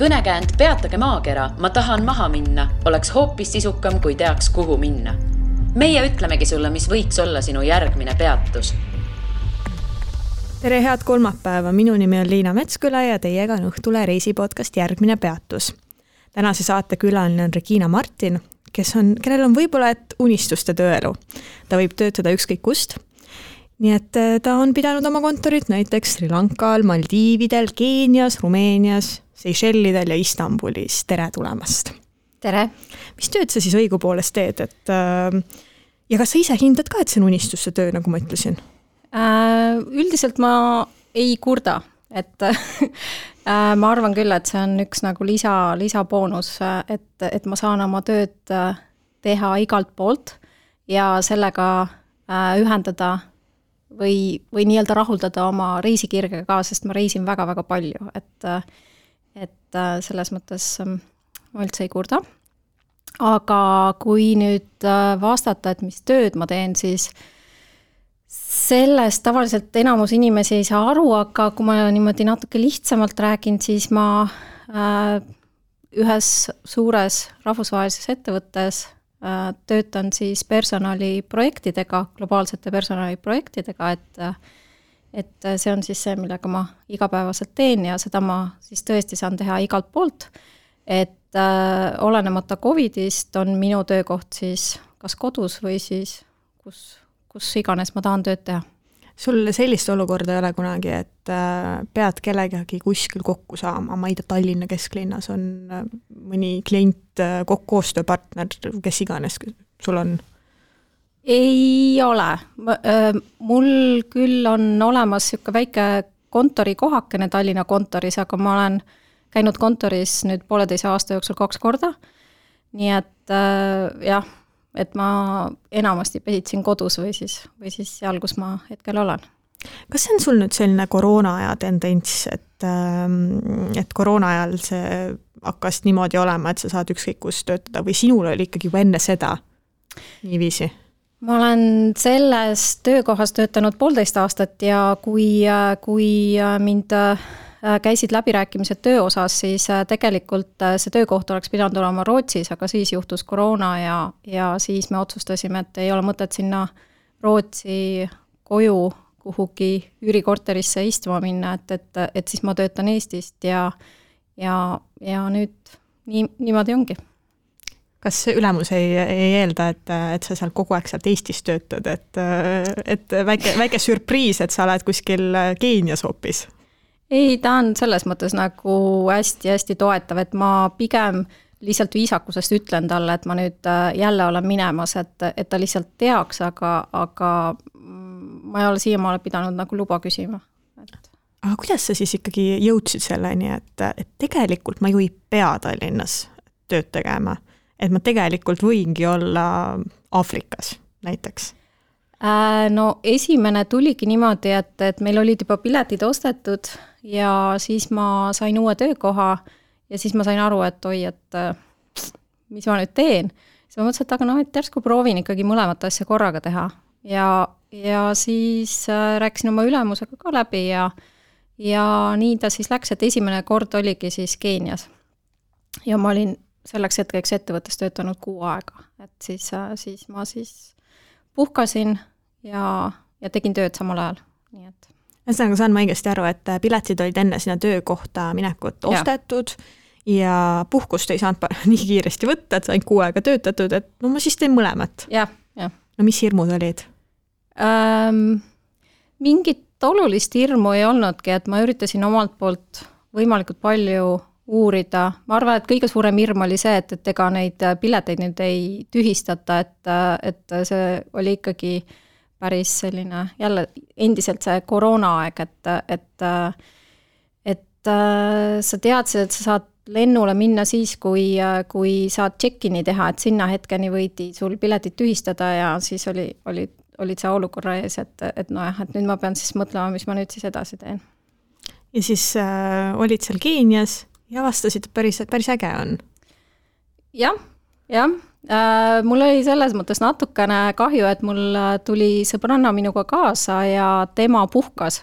Kõnekäänd Peatage maakera, ma tahan maha minna, oleks hoopis sisukam, kui teaks, kuhu minna. Meie ütlemegi sulle, mis võiks olla sinu järgmine peatus. Tere, head kolmapäeva. Minu nimi on Liina Metsküla ja teiega on Õhtule reisipodcast Järgmine peatus. Tänase saate külaline on Regina Martin, kellel on võib-olla unistuste tööelu. Ta võib töötada ükskõik kust. Nii et ta on pidanud oma kontorit näiteks Sri Lankal, Maldiividel, Keenias, Rumeenias, Seychellidel ja Istanbulis. Tere tulemast! Tere! Mis tööd sa siis õigupoolest teed? Ja kas sa ise hindad ka, et see on unistuste töö, nagu ma ütlesin? Üldiselt ma ei kurda. Ma arvan küll, et see on üks nagu lisaboonus, et ma saan oma tööd teha igalt poolt ja sellega ühendada või nii-öelda rahuldada oma reisikirgega ka, sest ma reisin väga-väga palju, et selles mõttes ma üldse ei kurda. Aga kui nüüd vastata, et mis tööd ma teen, siis sellest tavaliselt enamus inimesi ei saa aru, aga kui ma niimoodi natuke lihtsamalt räägin, siis ma ühes suures rahvusvahelises ettevõttes töötan siis personaliprojektidega, globaalsete personaliprojektidega, et see on siis see, millega ma igapäevaselt teen ja seda ma siis tõesti saan teha igalt poolt, et olenemata Covidist on minu töökoht siis kas kodus või siis kus iganes ma tahan tööd teha. Sul sellist olukorda ei ole kunagi, et pead kellegagi kuskil kokku saama, ma ei tea, Tallinna kesklinnas on mõni klient, koostööpartner, kes iganes sul on? Ei ole. Mul küll on olemas siuke väike kontori kohakene Tallinna kontoris, aga ma olen käinud kontoris nüüd 1,5 aasta jooksul 2 korda. Nii et jah, et ma enamasti pesitsin kodus või siis seal, kus ma hetkel olen. Kas see on sul nüüd selline koroonaaja tendents, et koroonajal see hakkas niimoodi olema, et sa saad ükskõik kus töötada või sinul oli ikkagi juba enne seda niiviisi? Ma olen selles töökohas töötanud 1,5 aastat ja kui mind käisid läbirääkimised töö osas, siis tegelikult see töökoht oleks pidanud olema Rootsis, aga siis juhtus koroona ja siis me otsustasime, et ei ole mõtet sinna Rootsi koju kuhugi üürikorterisse istuma minna, et siis ma töötan Eestist ja nüüd niimoodi ongi. Kas ülemus ei eelda, et sa seal kogu aeg sealt Eestis töötad, et väike sürpriis, et sa oled kuskil Keenias hoopis? Ei, ta on selles mõttes nagu hästi toetav, et ma pigem lihtsalt viisakusest ütlen talle, et ma nüüd jälle olen minemas, et ta lihtsalt teaks, aga ma ei ole siiamaale pidanud nagu luba küsima. Aga kuidas sa siis ikkagi jõudsid selleni, et tegelikult ma ju ei pea Tallinnas tööd tegema, et ma tegelikult võingi olla Aafrikas näiteks? No esimene tuligi niimoodi, et meil olid juba piletid ostetud ja siis ma sain uue töökoha ja siis ma sain aru, et mis ma nüüd teen. Siis ma mõtlesin, et aga et järsku proovin ikkagi mõlemat asja korraga teha ja siis rääkisin oma ülemusega ka läbi ja nii ta siis läks, et esimene kord oligi siis Keenias ja ma olin selleks hetkeks ettevõttes töötanud 6 aega, et siis ma puhkasin ja tegin tööd samal ajal. Nii et. Ühesõnaga saan ma õigesti aru, et piletid olid enne sinna töökohta minekut ostetud ja puhkust ei saanud nii kiiresti võtta, et sain 6 aega töötatud, et no ma siis teen mõlemat. Ja. No mis hirmud olid? Mingit olulist hirmu ei olnudki, et ma üritasin omalt poolt võimalikult palju uurida. Ma arvan, et kõige suurem hirm oli see, et ega neid pileteid nüüd ei tühistata, et see oli ikkagi päris selline, jälle endiselt see koroonaaeg, et sa teadsid, et sa saad lennule minna siis, kui saad check-in'i teha, et sinna hetkeni võidi sul piletid tühistada ja siis olid see olukorra ees, et nüüd ma pean siis mõtlema, mis ma nüüd siis edasi teen. Ja siis olid seal Keenias ja vastasid, et päris äge on. Jah. Mul oli selles mõttes natukene kahju, et mul tuli sõbranna minuga kaasa ja tema puhkas.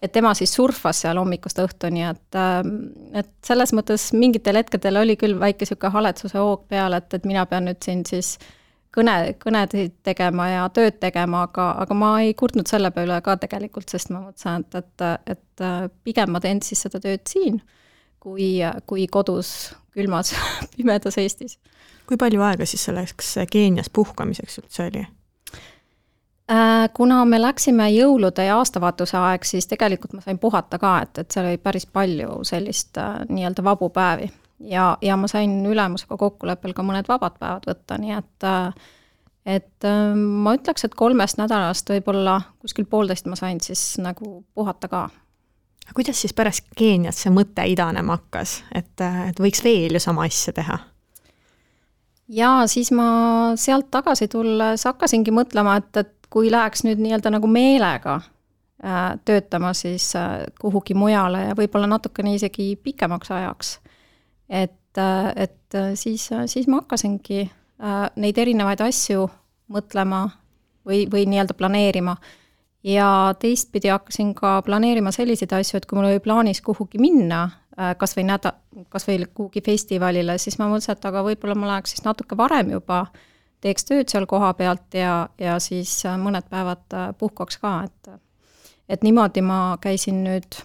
et tema siis surfas seal hommikust õhtuni, et selles mõttes mingitel hetkedel oli küll väike sihuke haletsuse hoog peal, et mina pean nüüd siin siis kõnesid tegema ja tööd tegema, aga ma ei kurtnud selle peale ka tegelikult, sest ma mõtlesin, et pigem ma teen siis seda tööd siin, kui kodus külmas pimedas Eestis. Kui palju aega siis selleks Keenias puhkamiseks üldse oli? Kuna me läksime jõulude ja aastavaatuse aeg, siis tegelikult ma sain puhata ka, et seal oli päris palju sellist nii-öelda vabu päevi. Ja ma sain ülemusega kokkuleppel ka mõned vabad päevad võtta, nii et ma ütleks, et 3 nädalast võib-olla kuskil 1,5 ma sain siis nagu puhata ka. Kuidas siis pärast Keenias see mõte idanema hakkas, et võiks veel ju sama asja teha? Ja siis ma sealt tagasi tulles hakkasingi mõtlema, et kui läheks nüüd nii-öelda nagu meelega töötama siis kuhugi mujale ja võib-olla natukene isegi pikemaks ajaks, et siis ma hakkasingi neid erinevaid asju mõtlema või nii-öelda planeerima. Ja teistpidi hakkasin ka planeerima selliseid asju, et kui mul oli plaanis kuhugi minna, kas või kuhugi festivalile, siis ma mõtlesin, et aga võib-olla ma läheks siis natuke varem juba, teeks tööd seal koha pealt ja siis mõned päevad puhkaks ka, et niimoodi ma käisin nüüd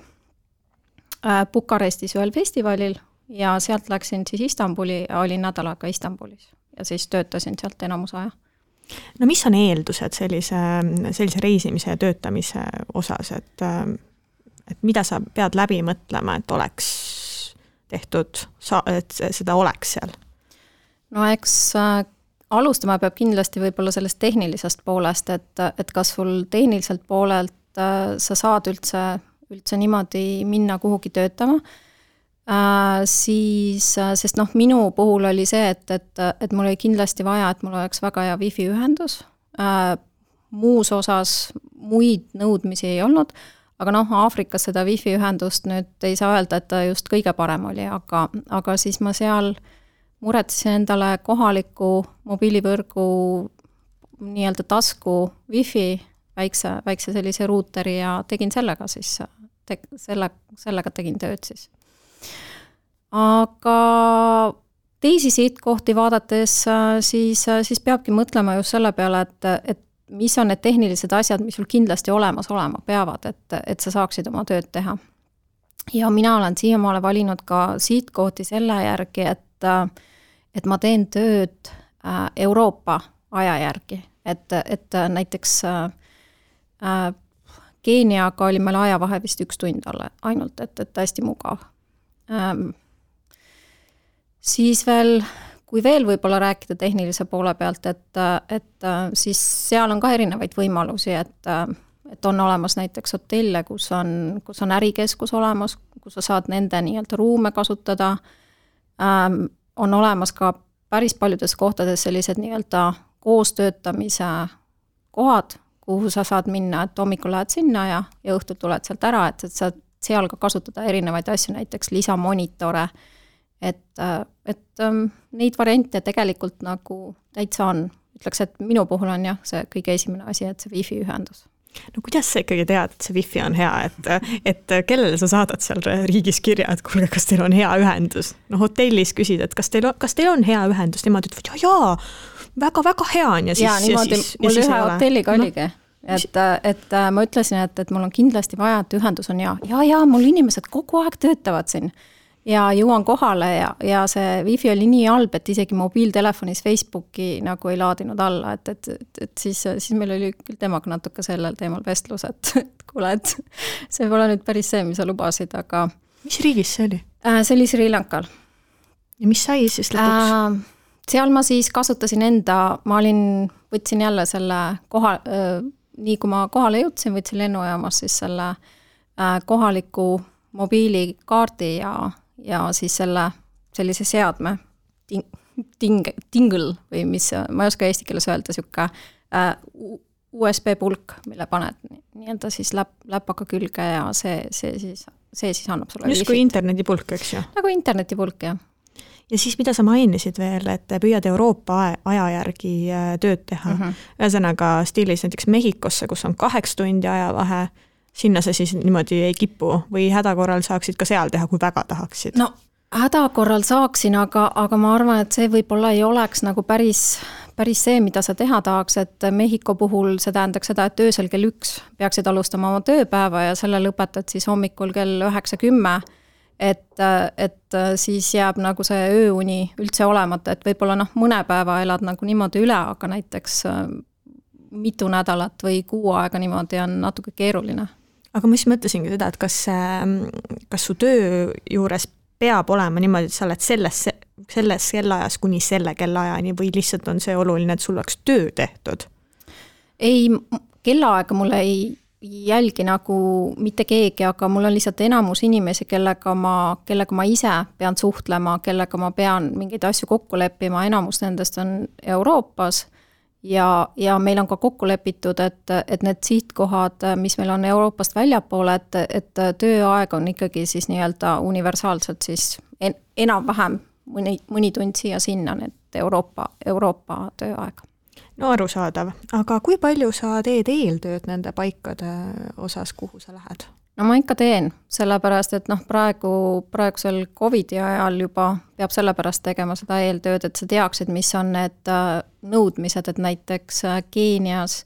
Bukarestis ühel festivalil ja sealt läksin siis Istanbuli ja olin nädal aega Istanbulis ja siis töötasin sealt enamus aja. No mis on eeldused sellise reisimise ja töötamise osas, et mida sa pead läbi mõtlema, et oleks tehtud, et seda oleks seal? No eks alustama peab kindlasti võib-olla sellest tehnilisest poolest, et kas sul tehniliselt poolelt sa saad üldse niimoodi minna kuhugi töötama, siis, sest minu puhul oli see, et mul oli kindlasti vaja, et mul oleks väga hea wifi ühendus, muus osas muid nõudmisi ei olnud, aga Aafrikas seda wifi ühendust nüüd ei saa öelda, et ta just kõige parem oli, aga siis ma seal muretsesin endale kohaliku mobiilivõrgu nii-öelda tasku wifi, väikse sellise ruuteri ja tegin sellega siis, sellega tegin tööd siis. Aga teisi sihtkohti vaadates siis peabki mõtlema just selle peale, et mis on need tehnilised asjad, mis sul kindlasti olemas olema peavad, et sa saaksid oma tööd teha. Ja mina olen siiamaale valinud ka sihtkohti selle järgi, et ma teen tööd Euroopa aja järgi, et näiteks Keeniaga oli meil ajavahe vist 1 tund ainult, et hästi mugav. Siis veel, kui veel võib-olla rääkida tehnilise poole pealt, et siis seal on ka erinevaid võimalusi, et on olemas näiteks hotelle, kus on ärikeskus olemas, kus sa saad nende nii-öelda ruume kasutada, on olemas ka päris paljudes kohtades sellised nii-öelda koostöötamise kohad, kuhu sa saad minna, et hommikul lähed sinna ja õhtul tuled sealt ära, et saad seal ka kasutada erinevaid asju, näiteks lisamonitore, et neid variante tegelikult nagu täitsa on. Ütleks, et minu puhul on jah, see kõige esimene asi, et see wifi ühendus. No kuidas sa ikkagi tead, et see wifi on hea, et kellele sa saadad seal riigis kirja, et kuulge, kas teil on hea ühendus? No hotellis küsid, et kas teil on hea ühendus? Nemad ütlevad, jaa, väga-väga hea on ja siis... Ja niimoodi mul ühe hotelliga oligi, et ma ütlesin, et mul on kindlasti vaja, et ühendus on hea. Ja, mul inimesed kogu aeg töötavad siin ja jõuan kohale ja see wifi oli nii halb, et isegi mobiiltelefonis Facebooki nagu ei laadinud alla, et siis meil oli küll temaga natuke sellel teemal vestlus, et kuule, et see pole nüüd päris see, mis sa lubasid, aga... Mis riigis see oli? See oli Sri Lankal. Ja mis sai siis lõpuks? Seal ma siis kasutasin võtsin jälle selle nii kui ma kohale jõudsin, võtsin lennujaamas siis selle kohaliku mobiilikaardi ja siis sellise seadme tingle või mis, ma ei oska eesti keeles öelda, siuke USB pulk, mille paned nii-öelda siis läpaka külge ja see siis annab sulle just kui internetipulk, eks ju? Nagu internetipulk, jah. Ja siis mida sa mainisid veel, et püüad Euroopa aja järgi tööd teha. Ühesõnaga stiilis näiteks Mehhikosse, kus on 8 tundi ajavahe, sinna sa siis niimoodi ei kipu või hädakorral saaksid ka seal teha, kui väga tahaksid? No hädakorral saaksin, aga ma arvan, et see võib-olla ei oleks nagu päris see, mida sa teha tahaks, et Mehhiko puhul see tähendaks seda, et öösel kell 1 peaksid alustama oma tööpäeva ja selle lõpetad siis hommikul kell 9-10, et siis jääb nagu see ööuni üldse olemata, et võib-olla mõne päeva elad nagu niimoodi üle, aga näiteks mitu nädalat või kuu aega niimoodi on natuke keeruline. Aga ma siis mõtlesingi seda, et kas su töö juures peab olema niimoodi, et sa oled selles kellaajas kuni selle kellaajani või lihtsalt on see oluline, et sul oleks töö tehtud? Ei, kellaaega mulle ei jälgi nagu mitte keegi, aga mul on lihtsalt enamus inimesi, kellega ma ise pean suhtlema, kellega ma pean mingeid asju kokku leppima, enamus nendest on Euroopas ja meil on ka kokku lepitud, et need sihtkohad, mis meil on Euroopast väljapoole, et tööaeg on ikkagi siis nii-öelda universaalselt siis enam-vähem mõni tund siia-sinna, need Euroopa tööaeg. No arusaadav, aga kui palju sa teed eeltööd nende paikade osas, kuhu sa lähed? No ma ikka teen, sellepärast, et praegusel COVID-i ajal juba peab sellepärast tegema seda eeltööd, et sa teaksid, mis on need nõudmised, et näiteks Keenias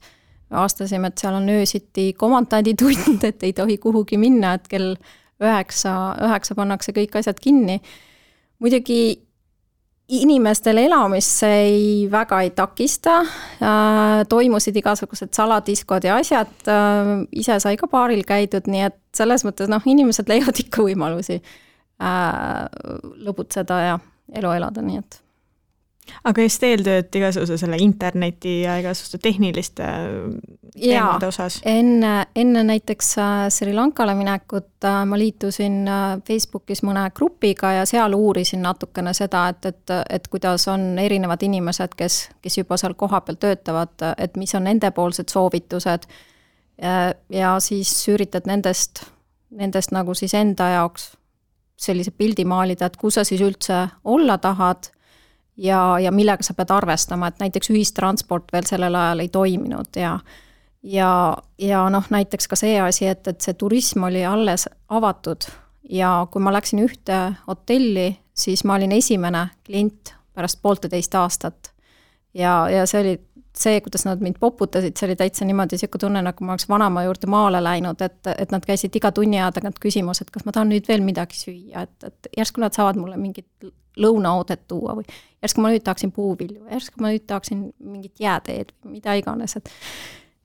aastasime, et seal on öösiti komandanditund, et ei tohi kuhugi minna, et kell 9 pannakse kõik asjad kinni. Muidugi inimestel elamist see väga ei takista, toimusid igasugused saladiskod ja asjad, ise sai ka baaril käidud, nii et selles mõttes inimesed leiavad ikka võimalusi lõbutseda ja elu elada, nii et. Aga just eeltööd igasuguse selle interneti ja igasuguste tehniliste teemade osas? Enne näiteks Sri Lankale minekut ma liitusin Facebookis mõne grupiga ja seal uurisin natukene seda, et kuidas on erinevad inimesed, kes juba seal kohapeal töötavad, et mis on nendepoolsed soovitused ja siis üritad nendest nagu siis enda jaoks sellise pildi maalida, et kus sa siis üldse olla tahad ja millega sa pead arvestama, et näiteks ühistransport veel sellel ajal ei toiminud ja näiteks ka see asi, et see turism oli alles avatud ja kui ma läksin ühte hotelli, siis ma olin esimene klient pärast 1,5 aastat ja see oli see, kuidas nad mind poputasid, see oli täitsa niimoodi siuke tunne, nagu ma oleks vanama juurde maale läinud, et nad käisid iga tunni aja tagant küsimus, et kas ma tahan nüüd veel midagi süüa, et järsku nad saavad mulle mingit lõunaoodet tuua või järsku ma nüüd tahaksin puuvilju, järsku ma nüüd tahaksin mingit jääteed või mida iganes,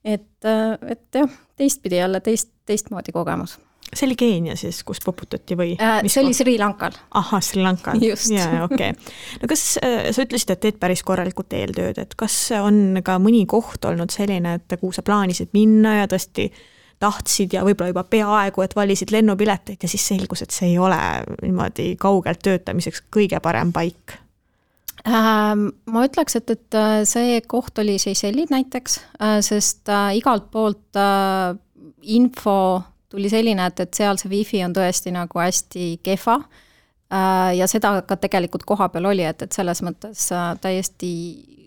et jah, teistpidi jälle teistmoodi kogemus. See oli Keenia siis, kus poputati või? See oli Sri Lankal. Aha, Sri Lankal. Just. Ja, okay. No kas sa ütlesid, et teed päris korralikult eeltööd, et kas on ka mõni koht olnud selline, et kuhu sa plaanisid minna ja tõesti tahtsid ja võib-olla juba peaaegu, et valisid lennupileteid ja siis selgus, et see ei ole niimoodi kaugelt töötamiseks kõige parem paik? Ma ütleks, et see koht oli Seychellid näiteks, sest igalt poolt info tuli selline, et seal see wifi on tõesti nagu hästi kehva ja seda ka tegelikult koha peal oli, et selles mõttes täiesti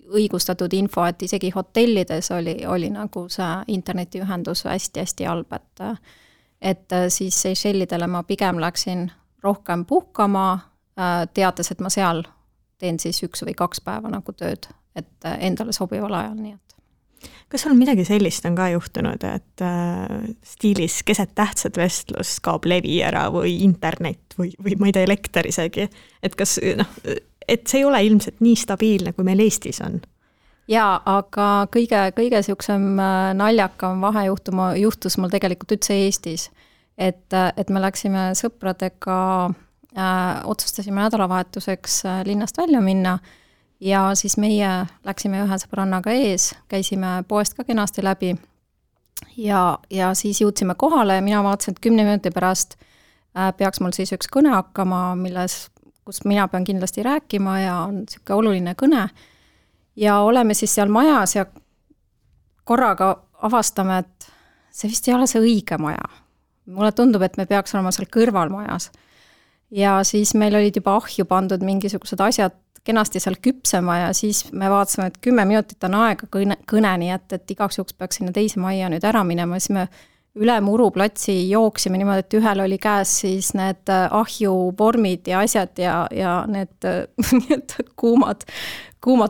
õigustatud info, et isegi hotellides oli nagu see internetiühendus hästi-hästi halb, et siis Seychellidele ma pigem läksin rohkem puhkama, teades, et ma seal teen siis 1 või 2 päeva nagu tööd, et endale sobival ajal, nii et. Kas sul midagi sellist on ka juhtunud, et stiilis keset tähtsat vestlust kaob levi ära või internet või ma ei tea, elekter isegi, et kas et see ei ole ilmselt nii stabiilne, kui meil Eestis on? Jaa, aga kõige siuksem naljakam juhtus mul tegelikult üldse Eestis, et me läksime sõpradega, otsustasime nädalavahetuseks linnast välja minna ja siis meie läksime ühe sõbrannaga ees, käisime poest ka kenasti läbi ja siis jõudsime kohale ja mina vaatasin, et 10 minuti pärast peaks mul siis üks kõne hakkama, kus mina pean kindlasti rääkima ja on siuke oluline kõne ja oleme siis seal majas ja korraga avastame, et see vist ei ole see õige maja. Mulle tundub, et me peaks olema seal kõrval majas. Ja siis meil olid juba ahju pandud mingisugused asjad kenasti seal küpsema ja siis me vaatasime, et 10 minutit on aega kõneni, et igaks juhuks peaks sinna teise majja nüüd ära minema, siis me üle Muruplatsi jooksime niimoodi, et ühel oli käes siis need ahjuvormid ja asjad ja need kuumad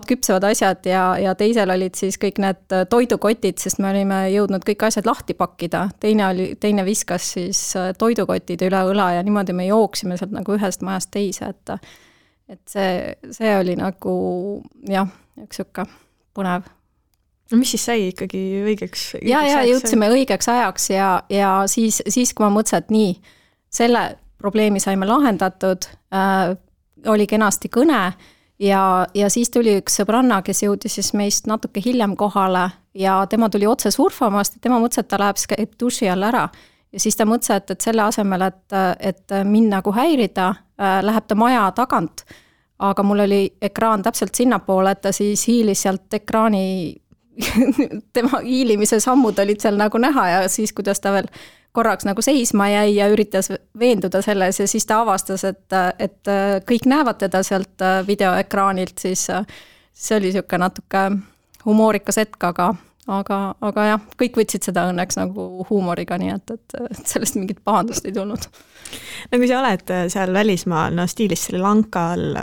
küpsevad asjad ja teisel olid siis kõik need toidukotid, sest me olime jõudnud kõik asjad lahti pakkida. Teine viskas siis toidukotid üle õla ja niimoodi me jooksime sealt nagu ühest majast teise, et see oli nagu jah, üks siuke põnev. No mis siis sai ikkagi õigeks? Ja jõudsime õigeks ajaks ja siis kui ma mõtlesin, et nii, selle probleemi saime lahendatud, oli kenasti kõne ja siis tuli üks sõbranna, kes jõudis siis meist natuke hiljem kohale ja tema tuli otse surfamast ja tema mõtles, et ta läheb käib duši all ära. Ja siis ta mõtles, et selle asemel, et mind nagu häirida, läheb ta maja tagant, aga mul oli ekraan täpselt sinnapoole, et ta siis hiilis sealt ekraani, tema hiilimise sammud olid seal nagu näha ja siis, kuidas ta veel korraks nagu seisma jäi ja üritas veenduda selles ja siis ta avastas, et kõik näevad teda sealt videoekraanilt, siis see oli siuke natuke humoorikas hetk, aga jah, kõik võtsid seda õnneks nagu huumoriga, nii et sellest mingit pahandust ei tulnud. No kui sa oled seal välismaal, stiilis Sri Lankal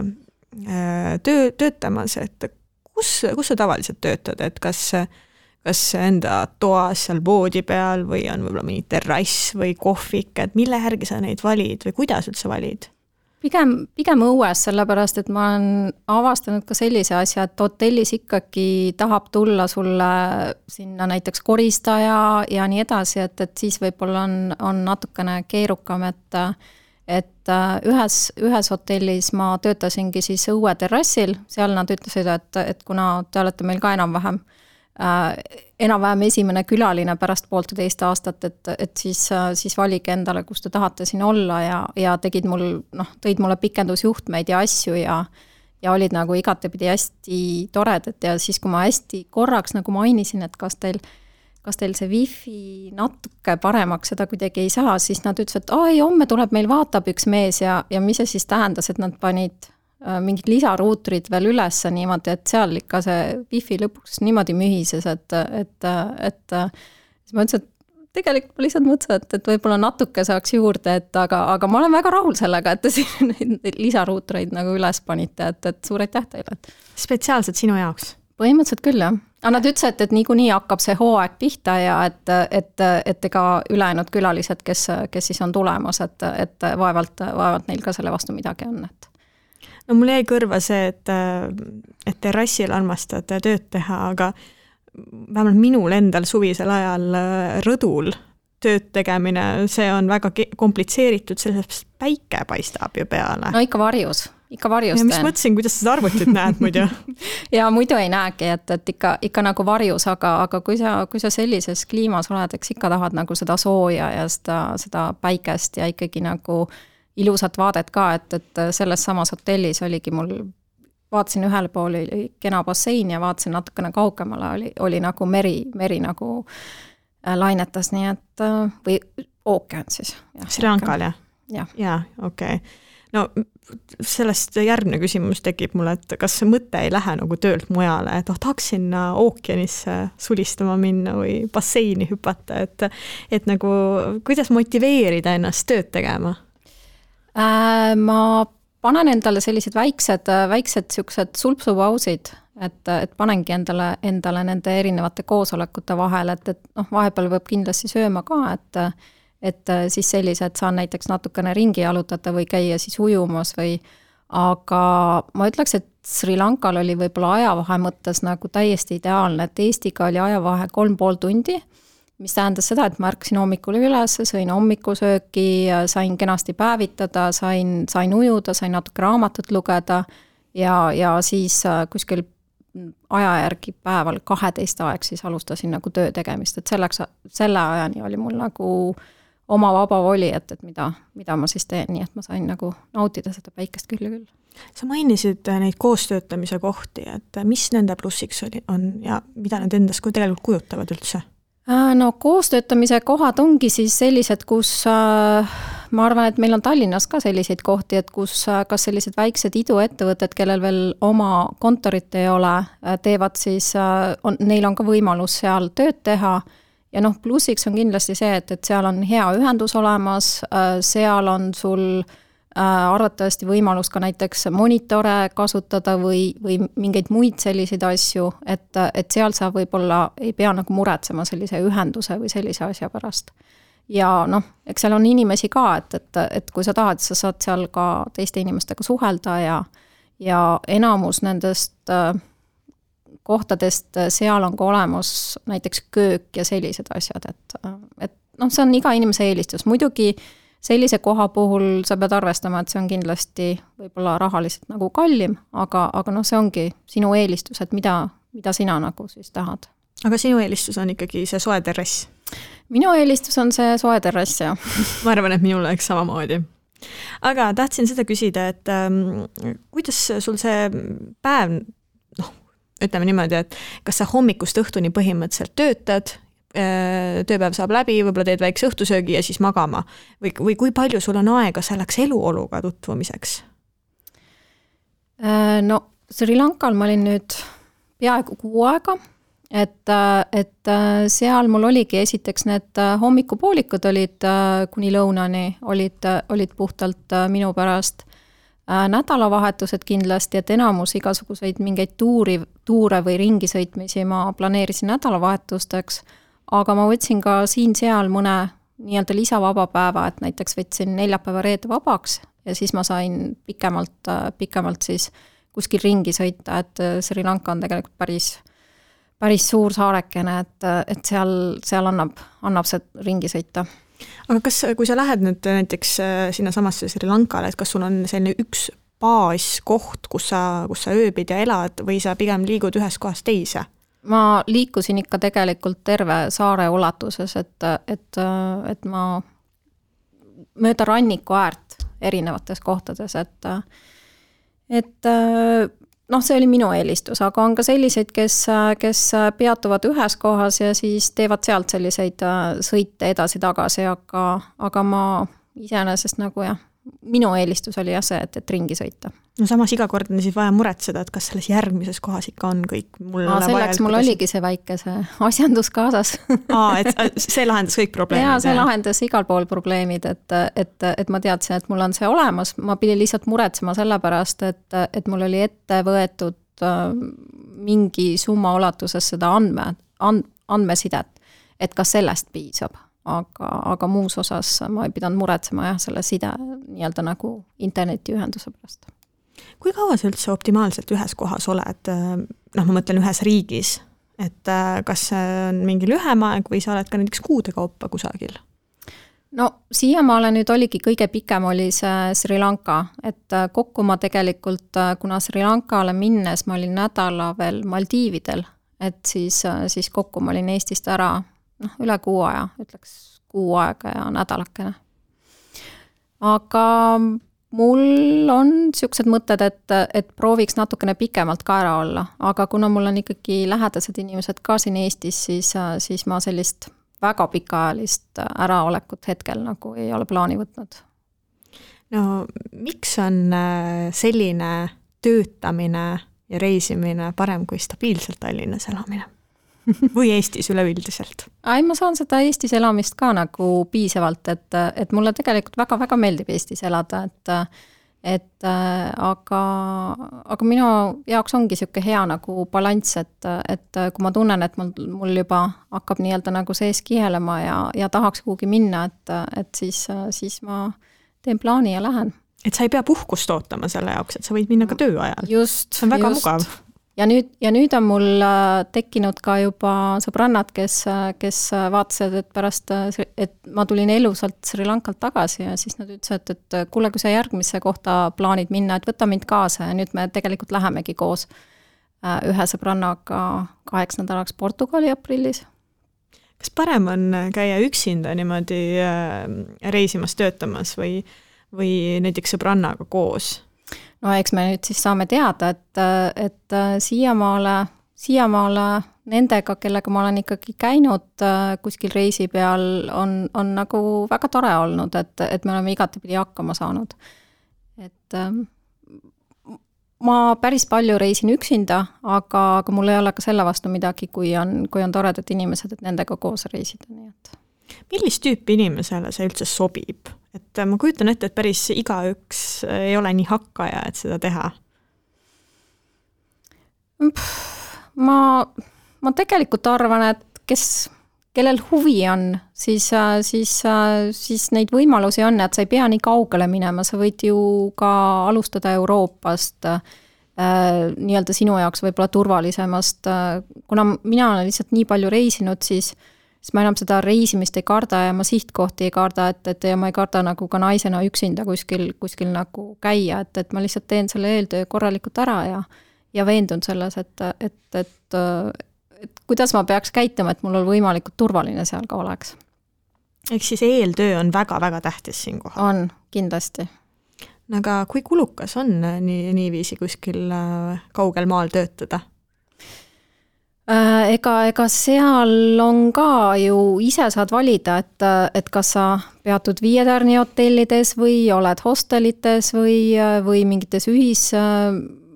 töötamas, et kus sa tavaliselt töötad, et kas enda toas seal voodi peal või on võib-olla mingi terrass või kohvik, et mille järgi sa neid valid või kuidas üldse valid? Pigem õues, sellepärast, et ma olen avastanud ka sellise asja, et hotellis ikkagi tahab tulla sulle sinna näiteks koristaja ja nii edasi, et siis võib-olla on natukene keerukam, et ühes hotellis ma töötasingi siis õue terrassil, seal nad ütlesid, et kuna te olete meil ka enam-vähem esimene külaline pärast 1,5 aastat, et siis valige endale, kus te tahate siin olla ja tõid mulle pikendusjuhtmeid ja asju ja olid nagu igatepidi hästi toredad ja siis, kui ma hästi korraks nagu mainisin, et kas teil see wifi natuke paremaks seda kuidagi ei saa, siis nad ütlesid, et homme tuleb meil vaatab üks mees ja mis see siis tähendas, et nad panid mingid lisaruutrid veel üles niimoodi, et seal ikka see wifi lõpuks niimoodi mühises, et siis ma ütlesin, et tegelikult ma lihtsalt mõtlesin, et võib-olla natuke saaks juurde, aga ma olen väga rahul sellega, et te siin neid lisaruutreid nagu üles panite, et suur aitäh teile. Spetsiaalselt sinu jaoks? Põhimõtteliselt küll, jah. Aga nad ütlesid, et niikuinii hakkab see hooaeg pihta ja et ega ülejäänud külalised, kes siis on tulemas, et vaevalt neil ka selle vastu midagi on, et no mul jäi kõrva see, et terrassil armastad tööd teha, aga vähemalt minul endal suvisel ajal rõdul tööd tegemine, see on väga komplitseeritud, sellest päike paistab ju peale. No ikka varjus ja mis mõtlesin, kuidas seda arvutit näed muidu? ja muidu ei näegi, et ikka nagu varjus, aga kui sa sellises kliimas oled, eks ikka tahad nagu seda sooja ja seda päikest ja ikkagi nagu ilusat vaadet ka, et selles samas hotellis oligi mul, vaatasin ühel pool oli kena bassein ja vaatasin natukene kaugemale, oli nagu meri nagu lainetas, nii et või ookean siis. Sri Lankal, jah? Jaa, okei. No sellest järgmine küsimus tekib mulle, et kas see mõte ei lähe nagu töölt mujale, et tahaks sinna ookeanisse sulistama minna või basseini hüpata, et nagu kuidas motiveerida ennast tööd tegema? Ma panen endale sellised väiksed siuksed sulpsupausid, et panengi endale nende erinevate koosolekute vahel, et vahepeal võib kindlasti sööma ka, et siis sellised saan näiteks natukene ringi jalutada või käia siis ujumas aga ma ütleks, et Sri Lankal oli võib-olla ajavahe mõttes nagu täiesti ideaalne, et Eestiga oli ajavahe 3,5 tundi, mis tähendas seda, et ma ärkasin hommikul üles, sõin hommikusööki, sain kenasti päevitada, sain ujuda, sain natuke raamatut lugeda ja siis kuskil aja järgi päeval 12 aeg siis alustasin nagu töö tegemist, et selle ajani oli mul nagu oma vaba voli, et mida ma siis teen, nii et ma sain nagu nautida seda päikest küll. Sa mainisid neid koostöötamise kohti, et mis nende plussiks on ja mida need endast tegelikult kujutavad üldse? No koostöötamise kohad ongi siis sellised, kus ma arvan, et meil on Tallinnas ka selliseid kohti, et kus kas sellised väiksed iduettevõtted, kellel veel oma kontorit ei ole, teevad siis, neil on ka võimalus seal tööd teha ja noh, plussiks on kindlasti see, et seal on hea ühendus olemas, seal on sul arvatavasti võimalus ka näiteks monitore kasutada või mingeid muid selliseid asju, et seal sa võib-olla ei pea nagu muretsema sellise ühenduse või sellise asja pärast. Ja noh, eks seal on inimesi ka, et kui sa tahad, sa saad seal ka teiste inimestega suhelda ja enamus nendest kohtadest seal on ka olemas näiteks köök ja sellised asjad, et noh, see on iga inimese eelistus. Muidugi sellise koha puhul sa pead arvestama, et see on kindlasti võib-olla rahaliselt nagu kallim, aga noh, see ongi sinu eelistus, et mida sina nagu siis tahad. Aga sinu eelistus on ikkagi see soe terrass? Minu eelistus on see soe terrass, jah. Ma arvan, et minul oleks samamoodi. Aga tahtsin seda küsida, et kuidas sul see päev, noh, ütleme niimoodi, et kas sa hommikust õhtuni põhimõtteliselt töötad, tööpäev saab läbi, võib-olla teed väikse õhtusöögi ja siis magama. Või kui palju sul on aega selleks eluoluga tutvumiseks? No Sri Lankal ma olin nüüd peaaegu 6 aega, et seal mul oligi esiteks need hommikupoolikud olid kuni lõunani, olid puhtalt minu pärast nädalavahetused kindlasti, et enamus igasuguseid mingeid tuure või ringisõitmisi ma planeerisin nädalavahetusteks, aga ma võtsin ka siin-seal mõne nii-öelda lisavaba päeva, et näiteks võtsin neljapäeva reede vabaks ja siis ma sain pikemalt siis kuskil ringi sõita, et Sri Lanka on tegelikult päris suur saarekene, et seal annab see ringi sõita. Aga kui sa lähed nüüd näiteks sinna samasse Sri Lankale, et kas sul on selline üks baaskoht, kus sa ööbid ja elad või sa pigem liigud ühest kohast teise? Ma liikusin ikka tegelikult terve saare ulatuses, et ma mööda ranniku äärt erinevates kohtades, et noh, see oli minu eelistus, aga on ka selliseid, kes peatuvad ühes kohas ja siis teevad sealt selliseid sõite edasi-tagasi, aga ma iseenesest nagu jah, minu eelistus oli jah see, et ringi sõita. No samas iga kord on siis vaja muretseda, et kas selles järgmises kohas ikka on kõik mulle selleks mul oligi see väike see asjandus kaasas. Et see lahendas kõik probleemid? Jaa, see lahendas igal pool probleemid, et ma teadsin, et mul on see olemas, ma pidin lihtsalt muretsema selle pärast, et mul oli ette võetud mingi summa ulatuses seda andmesidet, et kas sellest piisab. Aga muus osas ma ei pidanud muretsema jah, selle side nii-öelda nagu internetiühenduse pärast. Kui kaua sa üldse optimaalselt ühes kohas oled, noh, ma mõtlen ühes riigis, et kas see on mingi lühem aeg või sa oled ka näiteks kuude kaupa kusagil? No siiamaale nüüd oligi kõige pikem oli see Sri Lanka, et kokku ma tegelikult, kuna Sri Lankale minnes ma olin nädala veel Maldiividel, et siis kokku ma olin Eestist ära üle 6 aja, ütleks 6 aega ja nädalakene. Aga mul on siuksed mõtted, et prooviks natukene pikemalt ka ära olla, aga kuna mul on ikkagi lähedased inimesed ka siin Eestis, siis ma sellist väga pikaajalist äraolekut hetkel nagu ei ole plaani võtnud. No miks on selline töötamine ja reisimine parem kui stabiilselt Tallinnas elamine? Või Eestis üleüldiselt? Ma saan seda Eestis elamist ka nagu piisavalt, et mulle tegelikult väga-väga meeldib Eestis elada, aga minu jaoks ongi siuke hea nagu balanss, et kui ma tunnen, et mul juba hakkab nii-öelda nagu sees kihelema ja tahaks kuhugi minna, et siis ma teen plaani ja lähen. Et sa ei pea puhkust ootama selle jaoks, et sa võid minna ka töö ajal. See on väga mugav. Ja nüüd on mul tekkinud ka juba sõbrannad, kes vaatasid, et pärast, et ma tulin elusalt Sri Lankalt tagasi ja siis nad ütlesid, et kuule, kui sa järgmisse kohta plaanid minna, et võta mind kaasa ja nüüd me tegelikult lähemegi koos ühe sõbrannaga 8 nädalaks Portugali aprillis. Kas parem on käia üksinda niimoodi reisimas töötamas või näiteks sõbrannaga koos? No eks me nüüd siis saame teada, et siiamaale nendega, kellega ma olen ikkagi käinud kuskil reisi peal, on nagu väga tore olnud, et me oleme igatepidi hakkama saanud. Et ma päris palju reisin üksinda, aga mul ei ole ka selle vastu midagi, kui on toredad inimesed, et nendega koos reisida, nii et. Millist tüüpi inimesele see üldse sobib? Et ma kujutan ette, et päris igaüks ei ole nii hakkaja, et seda teha. Ma tegelikult arvan, et kellel huvi on, siis neid võimalusi on, et sa ei pea nii kaugele minema, sa võid ju ka alustada Euroopast, nii-öelda sinu jaoks võib-olla turvalisemast, kuna mina olen lihtsalt nii palju reisinud, siis ma enam seda reisimist ei karda ja ma sihtkohti ei karda, et ja ma ei karda nagu ka naisena üksinda kuskil nagu käia, et ma lihtsalt teen selle eeltöö korralikult ära ja veendun selles, et kuidas ma peaks käituma, et mul on võimalikult turvaline seal ka oleks. Ehk siis eeltöö on väga-väga tähtis siin kohal. On, kindlasti. Aga kui kulukas on niiviisi kuskil kaugel maal töötada? Ega seal on ka ju ise saad valida, et kas sa peatud 5-tärni hotellides või oled hostelites või mingites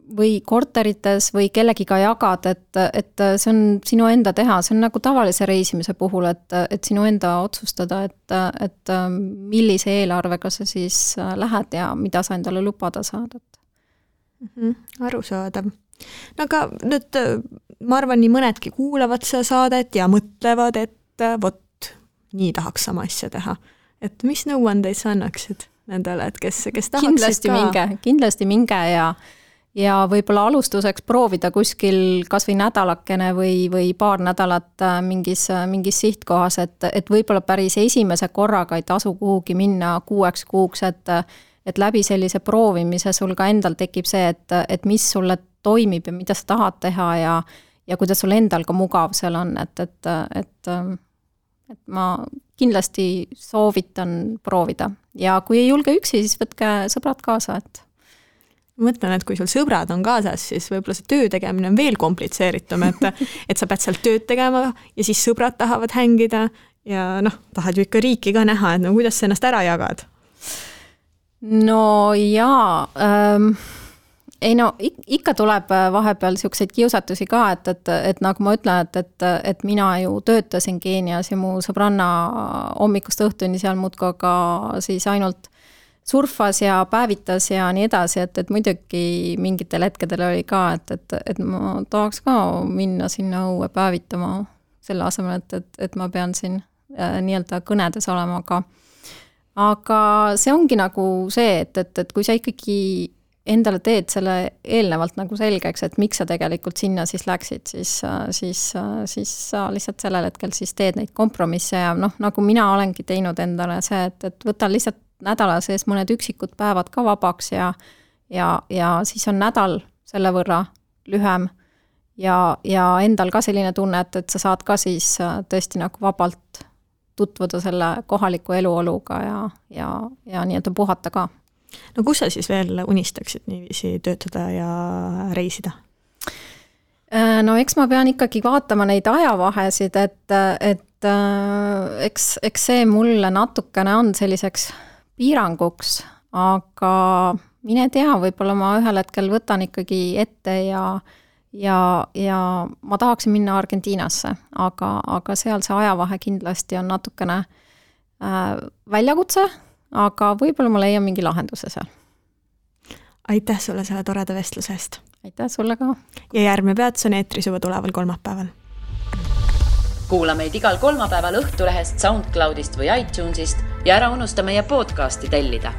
või korterites või kellegiga jagad, et see on sinu enda teha, see on nagu tavalise reisimise puhul, et sinu enda otsustada, et millise eelarvega sa siis lähed ja mida sa endale lubada saad. Arusaadav. No aga nüüd ma arvan, nii mõnedki kuulavad seda saadet ja mõtlevad, et vot, nii tahaks sama asja teha. Et mis nõuandeid sa annaksid nendele, et kes tahaksid kindlasti minge ja võib-olla alustuseks proovida kuskil kas või nädalakene või paar nädalat mingis sihtkohas, et võib-olla päris esimese korraga ei tasu kuhugi minna 6 kuuks, et läbi sellise proovimise sul ka endal tekib see, et mis sulle toimib ja mida sa tahad teha ja kuidas sul endal ka mugav seal on, et ma kindlasti soovitan proovida. Ja kui ei julge üksi, siis võtke sõbrad kaasa, et ma mõtlen, et kui sul sõbrad on kaasas, siis võib-olla see töö tegemine on veel komplitseeritum, et sa pead sealt tööd tegema ja siis sõbrad tahavad hängida ja tahad ju ikka riiki ka näha, et kuidas sa ennast ära jagad? No jaa, ikka tuleb vahepeal selliseid kiusatusi ka, et nagu ma ütlen, et mina ju töötasin Keenias ja mu sõbranna hommikust õhtuni seal muudkui ka siis ainult surfas ja päevitas ja nii edasi, et muidugi mingitel hetkedel oli ka, et ma tahaks ka minna sinna õue päevitama selle asemel, et ma pean siin nii-öelda kõnedes olema, aga see ongi nagu see, et kui sa ikkagi endale teed selle eelnevalt nagu selgeks, et miks sa tegelikult sinna siis läksid, siis sa lihtsalt sellel hetkel siis teed neid kompromisse ja nagu mina olengi teinud endale see, et võtan lihtsalt nädala sees mõned üksikud päevad ka vabaks ja siis on nädal selle võrra lühem ja endal ka selline tunne, et sa saad ka siis tõesti nagu vabalt tutvuda selle kohaliku eluoluga ja nii-öelda puhata ka. No kus sa siis veel unistaksid niiviisi töötada ja reisida? No eks ma pean ikkagi vaatama neid ajavahesid, et eks see mulle natukene on selliseks piiranguks, aga mine tea, võib-olla ma ühel hetkel võtan ikkagi ette ja ma tahaksin minna Argentiinasse, aga seal see ajavahe kindlasti on natukene väljakutse, aga võib-olla ma leian mingi lahenduse seal. Aitäh sulle selle toreda vestluse eest. Aitäh sulle ka. Ja järgmine peatus on eetris juba tuleval kolmapäeval. Kuula meid igal kolmapäeval Õhtulehest, SoundCloudist või iTunesist ja ära unusta meie podcasti tellida.